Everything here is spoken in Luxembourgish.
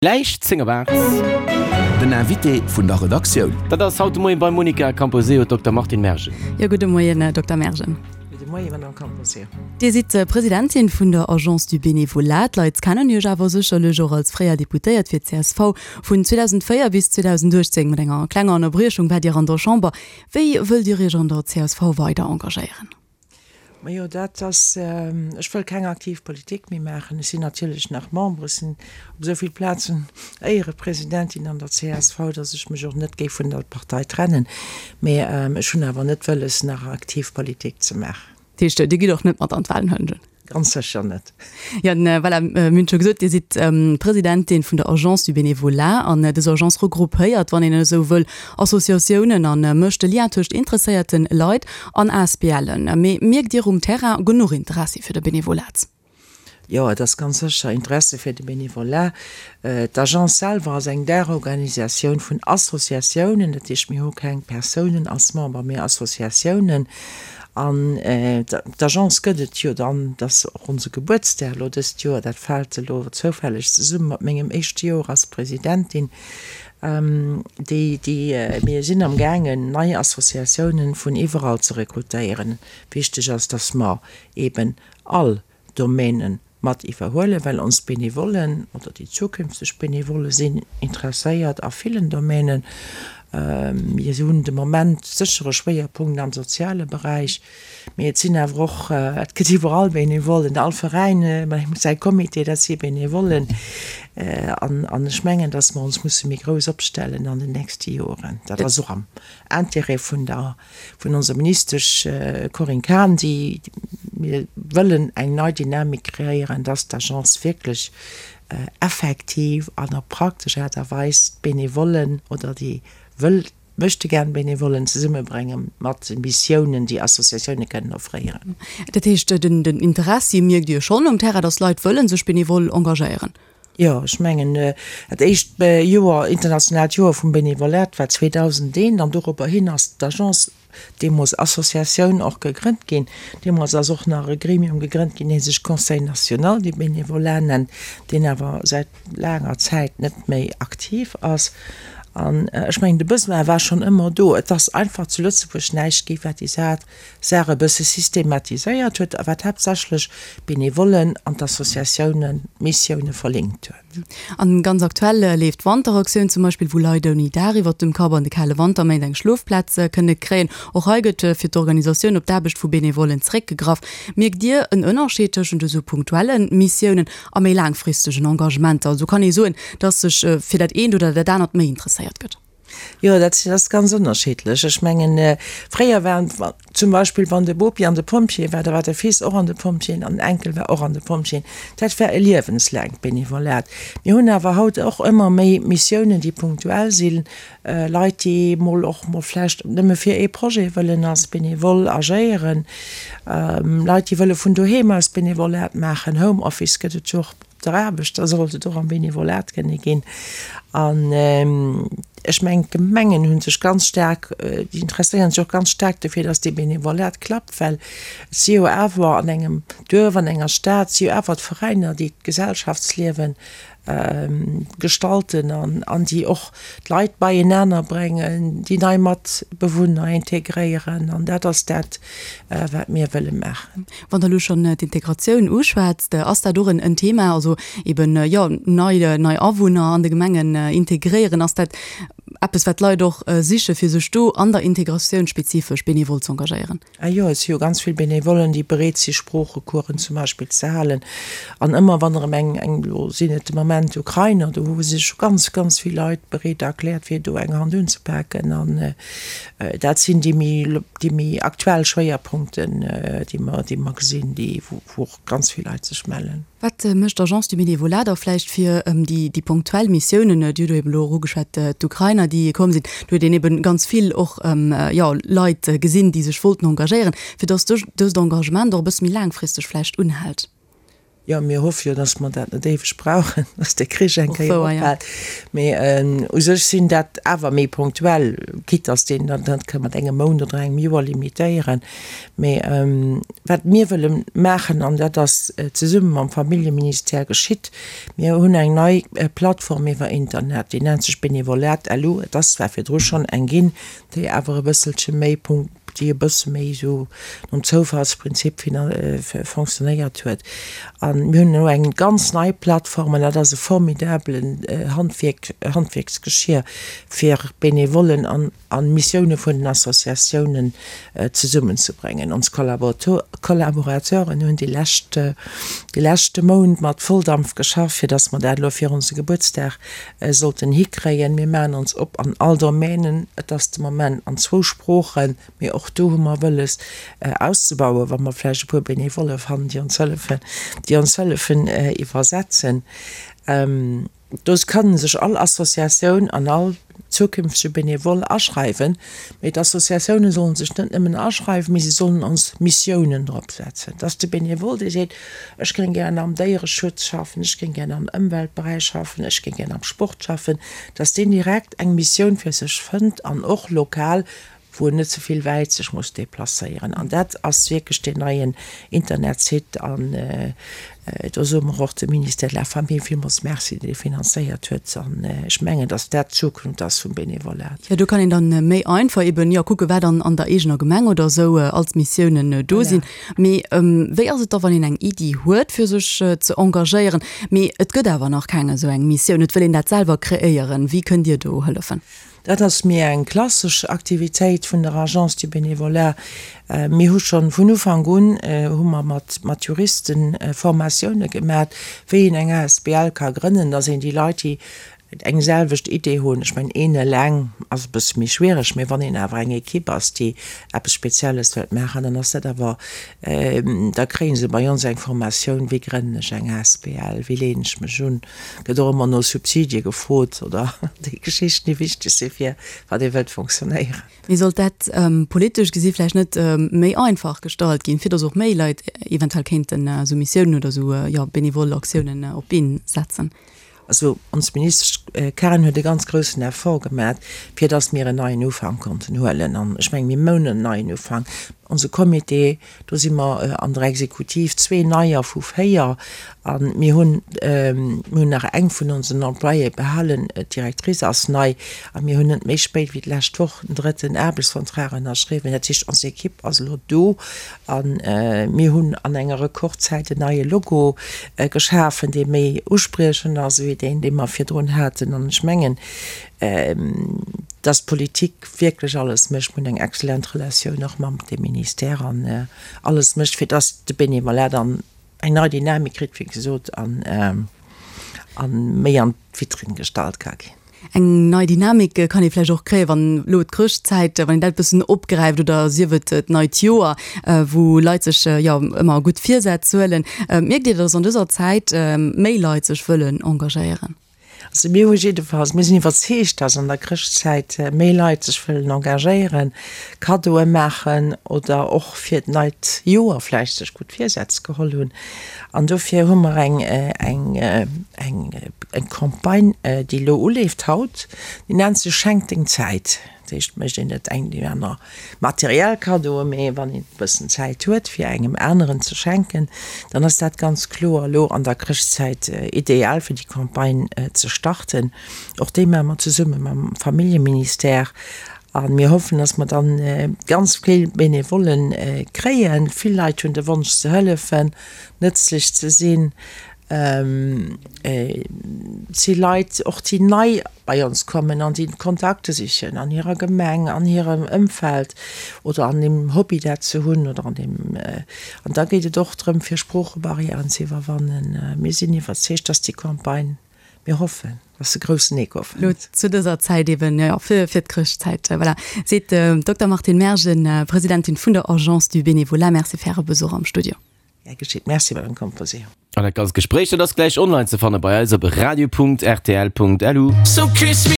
Gläich 10 op 8. Den Invité vun der Redaktioun. Dat ass haut de Moien beim Monica Camposeo d'Dokter Martine Mergen. Jo, gudde Moien, Dokter Mergen. Gudde Moien, Madame Camposeo. Dir sidd Presidentin vun der Agence du Bénévolat. D'Leit kennen Iech awer sécherlech och als fréier Deputéiert fir d'CSV. Vun 2004 bis 2018, mat enger klenger Ënnerbriechung, waart Dir an der Chamber. Wéi wëllt Dir Iech an der csv weider engagéieren? Majo, dat ass, ech wëll keng aktiv Politik méi maachen. Ech sinn natierlech nach Member, ech sinn op esou vill Plazen Éierepresidentin an der csv, datt ech mech och net géif vun der Partei trennen. Mee ech hunn awer net wëlles, nach aktiv Politik ze maachen. Dat heescht, Dir gitt och net mat an d'Wahlen, huelen ech un? Ganz sécher net. Jo, voilà, mir hunn et scho gesot, Dir sidd Presidentin vun der Agence du Bénévolat an dës Agence regroupéiert, wann een esou wëll, Associatiounen a mécht de Lien tëscht interesséierte Leit an ASBLen. Mee mierkt Dir um Terrain genuch Interessi fir de Benevolat? Jo, et ass ganz sécher Interesse fir de Benevolat. D'Agence selwer ass eng Daachorganisatioun vun Associatiounen, dat heescht, mir hu keng Persounen als Member, mee Associatiounen. An d'Agence gëtt et jo dann, dat ass och onse Gebuertsdag elo dëst Joer, dat fält elo zoufälleg zesumme mat mengem éischte Joer als Presidentin, déi, déi, mir sinn am gaangen nei Associatiounen vun iwwerall ze rekrutéieren. Wichteg ass, dass mer eeben all Domänen mat iwwerhuelen, well ons Benevollen oder déi zukünfteg Benevolle sinn interesséiert a villen Domänen. Mir hunn de Moment sécher e Schwéierpunkt am soziale Beräich, mee et sinn awer och, et gëtt iwwerall Benevollen, all Veräin huet säi Comité, dat si Benevollen. An ech mengen, datt mer ons musse méi grouss opstellen an den nächste Joren. Dat ass och am Intérêt vun der vun onser Ministesch Corinne Cahen, déi mir wëllen eng nei Dynamik kreéieren, dass d'Agence wierklech effektiv an op praktesch Aart a Weis d'Benevollen oder déi wëll Möchtegern-Benevollen zesummebrénge mat Missiounen, déi Associatioune kënnen offréieren. Dat heescht, den Interessi mierkt Dir schonn um Terrain, dass Leit wëlle sech benevol engagéieren? Jo, ech mengen, dat éischt Joer, internationaalt Joer vum Benevolat war 2001 an dorobber hin ass d'Agence, deemools Associatioun, och gegrënnt ginn. Deemools ass och nach e Gremium gegrënnt ginn, dee sech Conseil national du bénévolat nennt, deen awer säit laanger Zäit net méi aktiv ass. An ech mengen, de Besoin war schonn ëmmer do. Et ass einfach zu Lëtzebuerg näischt gi wat déi Saach Saach e bësse systematiséiert huet a wat haaptsächlech d'Benevollen an d'Associatiounen d'Missioune verlinkt huet. An ganz aktuell leeft d'Wanteraktioun zum Beispill, wou Leit ouni Daach iwwert dem Kapp an de kale Wanterméint eng Schlofplaz kënne kréien. Och hei gëtt fir d'Organisatioun op d'Aarbecht vu Benevollen zeréckgegraff. Mierkt Dir en Ënnerscheed tëschent esou punktuelle Missiounen a méi laangfristegen Engagementer? Also kann ee soen, datt sech fir dat eent oder dat anert méi interesséiert gëtt? Jo, dat ass ganz ënnerschiddlech. Ech mengen, fréier war zum Beispill, wann de Bopi an de Pompjee war, da war de Fils och an de Pompjeeën an den Enkel war och an de Pompjeeën. Dat war e liewenslaangt Benevolat. Mir hunn awer haut och ëmmer méi Missiounen, déi punktuell sinn, Leit, déi mol och mol vläicht nëmme fir ee Projet wëllen als Benevole agéieren, Leit, déi wëlle vun doheem aus Benevolat maachen, Homeoffice gëtt et jo och. Der Aarbecht, da sollt et och am Benevolat kënne ginn. An ech mengen, d'Gemengen hu sech ganz staark, déi interesséieren sech och ganz staark dofir, datt dee Benevolat klappt, well et si jo awer an engem Duerf, an enger Stad si jo awer d'Veräiner, déi d'Gesellschaftsliewe gestalten an an déi och d'Leit beienaner bréngen, déi nei Matbewunner integréieren. An dat ass dat, wat mir wëlle maachen. Wann Der elo schonn d'Integratioun uschwätzt, ass dat och en Thema, also eben, jo, nei, nei Awunner an de Gemengen integréieren? Ass dat eppes, wat d'Leit och sichen, fir sech do an der Integratioun spezifesch benevol z'engagéieren? Ah jo, et si jo ganz vill Benevollen, déi bereet si Sproochecoursen zum Beispill ze halen. An ëmmer wann erëm eng, eng, elo sinn et de Moment Ukrainer, do hu sech ganz, ganz vill Leit bereet erkläert, fir do eng Hand unzepaken. An dat sinn déi méi, déi méi aktuell Schwéierpunkten, déi mer, déi mer gesinn, déi, wou och ganz vill Leit sech mellen. Wat mécht d'Agence du Bénévolat da vläicht fir déi, déi punktuell Missiounen? Dir hutt eben elo och ugeschwat, d'Ukrainer, déi komm sinn. Do huet een eben ganz vill och, jo, Leit gesinn, déi sech wollten engagéieren, fir dass dëst Engagement och e bësse méi laangfristeg vläicht unhält. Jo, mir hoffe jo, datt mer dat net éiweg brauchen, datt de Krich eng Kéier ophält. Mee u sech sinn dat awer méi punktuell, quitte datt een dat net ka mat engem Mount oder engem Joer limitéieren. Mee wat mir wëlle maachen, an dat ass zesumme mam Familljeministère geschitt, mir hunn eng nei Plattform iwwer Internet, déi nennt sech Benevolat.lu. Et ass zwar virdru schonn eng ginn, déi awer e bësselche méi déi e bësse méi esou nom Zoufallsprinzip fonctionnéiert huet. A mir hunn elo eng ganz nei Plattform an dat ass e formidabelen Handwierk, Handwierksgeschir fir Benevollen an a Missioune vun den Associatiounen zesummenzebréngen. Ons Collaborateuren hunn déi lescht, dee leschte Mount mat Volldampf geschafft, fir datt mer dat elo fir onse Gebuertsdag sollten hikréien. Mir maachen ons op an all Domänen. Et ass de Moment an zwou Sproochen, mee och do hu mer wëlles auszebauen, wa mer vläicht e puer Benevolle fannen, déi ons hëllefen, déi ons hëllefen iwwersetzen. Do kann sech all Associatioun an all zukünftege Benevole aschreiwen. Mee d'Associatioune sollen sech net nëmmen aschreiwen, mee se sollen ons Missiounen drop setzen. Dass de Benevole, dee seet, Ech géing gären am Déiereschutz schaffen, ech géing gären am Ëmweltberäich schaffen, ech géing gären am Sport schaffen, dass deen direkt eng Missioun fir sech fënnt an och lokal, wou en net ze vill wäit sech muss deplacéieren. An dat ass wierklech deen neien Internetsite. An do soe mer och dem Ministère de la Famille villmools Merci, deen dee finanzéiert huet. An ech mengen, dass dat d'Zukunft ass vum Benevolat. Jo, do kann een dann méi einfach eben, jo, kucken, wat an der eegener Gemeng oder esou als Missiounen do sinn. Mee wéi ass et da, wann een eng Iddi huet, fir sech ze engagéieren, mee et gëtt awer nach keng esou eng Missioun, et wëll een dat selwer kreéieren? Wéi kënnt Dir do hëllefen? Dat ass méi eng klassesch Aktivitéit vun der Agence du Bénévolat. Mir hu schonn vun Ufank un hu mer mat mat Juriste Formatioune gemat, wéi een eng asbl ka grënnen, dass een déi Leit, déi eng selwecht Idee hunn. Ech mengen, een eleng ass e bësse méi schwiereg, mee wann een awer eng Ekipp ass, déi eppes Spezielles wëllt maachen, dann ass dat awer, da kréie se bei ons eng Formatioun, wéi grënnen ech eng asbl, wéi leeën ech mech un, gëtt och ëmmer no Subsidie gefrot oder déi Geschichten, déi wichteg si fir wat ee wëllt fonctionnéieren. Mee sollt dat politesch gesi vläicht net méi einfach gestallt ginn, fir datt och méi Leit eventuell kéinten esou Missiounen oder esou, jo, benevol Aktiounen op d'Been setzen? Also ons Ministesch Cahen huet e ganz groussen Effort gemat, fir dass mir en neien Ufank konnten huelen. An ech mengen, mir moun en neien Ufank. Onse Comité, do si mer an der Exekutiv zwee Neier vu véier. A mir hunn, mir hunn nach eng vun onsen Employéë behalen, d'Directrice ass nei. A mir hunn net méi spéit wéi d'lescht Woch den drëtten Aarbechtsvertrag ënnerschriwwen. Dat heescht, ons Ekipp ass elo do. A mir hunn an enger Rekordzäit en neie Logo geschafen, dee méi uspriechend ass ewéi deen, dee mer virdrun haten. An ech mengen, dass d'Politik wierklech alles mécht, mir hunn eng excellent Relatioun och mam dem Ministère, an alles mécht, fir dass de Bénévolat dann eng nei Dynamik kritt, wéi gesot, an méi an d'Vitrinn gestallt ka ginn. Eng nei Dynamik kann ee vläicht och kréien, wann elo d'Chrëschtzäit, wann een dat e bëssen opgräift oder sief et d'neit Joer, wou Leit sech jo ëmmer gutt Virsätz huelen. Mierkt Dir, datt an dëser Zäit méi Leit sech wëllen engagéieren? Also mir hu jiddefalls, mir sinn iwwerzeegt, datt an der Chrëschtzäit méi Leit sech wëllen engagéieren, Kaddoe maachen oder och fir d'neit Joer vläicht sech gutt Virsätz geholl hunn. An dofir hu mer eng, eng, eng, eng Campagne, déi elo uleeft haut, déi nennt sech Schenk deng Zäit. Dat heescht, et mécht een net eng déi aner materiell Kaddoe, mee wann een e bëssen Zäit huet, fir engem aneren ze schenken, dann ass dat ganz kloer elo an der Chrëschtzäit ideal, fir déi Campagne ze starten. Och déi maache mer zesumme mam Familljeministère. A mir hoffen, dass mer dann ganz vill Benevollen kréien. Vill Leit hunn de Wonsch ze hëllefen, nëtzlech ze sinn. Et si Leit och, déi nei bei ons kommen an déi Kontakte sichen an hirer Gemeng, an hirem Ëmfeld oder an deem Hobby dat se hunn oder an deem. An da geet et och drëm, fir Sproochebarrièren ze iwwerwannen. Mir sinn iwwerzeegt, dass déi Campagne Mir hoffen, dass se groussen Echo fënnt. Lo zu dëser Zäit eben, jo, fir d'Chrëschtzäit, voilà, seet d'Dokter Martine Mergen, Presidentin vun der Agence du Bénévolat. Merci fir Äre Besuch am Studio. Gär geschitt. Merci, Madame Composé. An dat ganzt Gespréich, dat ass gläich online ze fanne bei eis op radio.rtl.lu.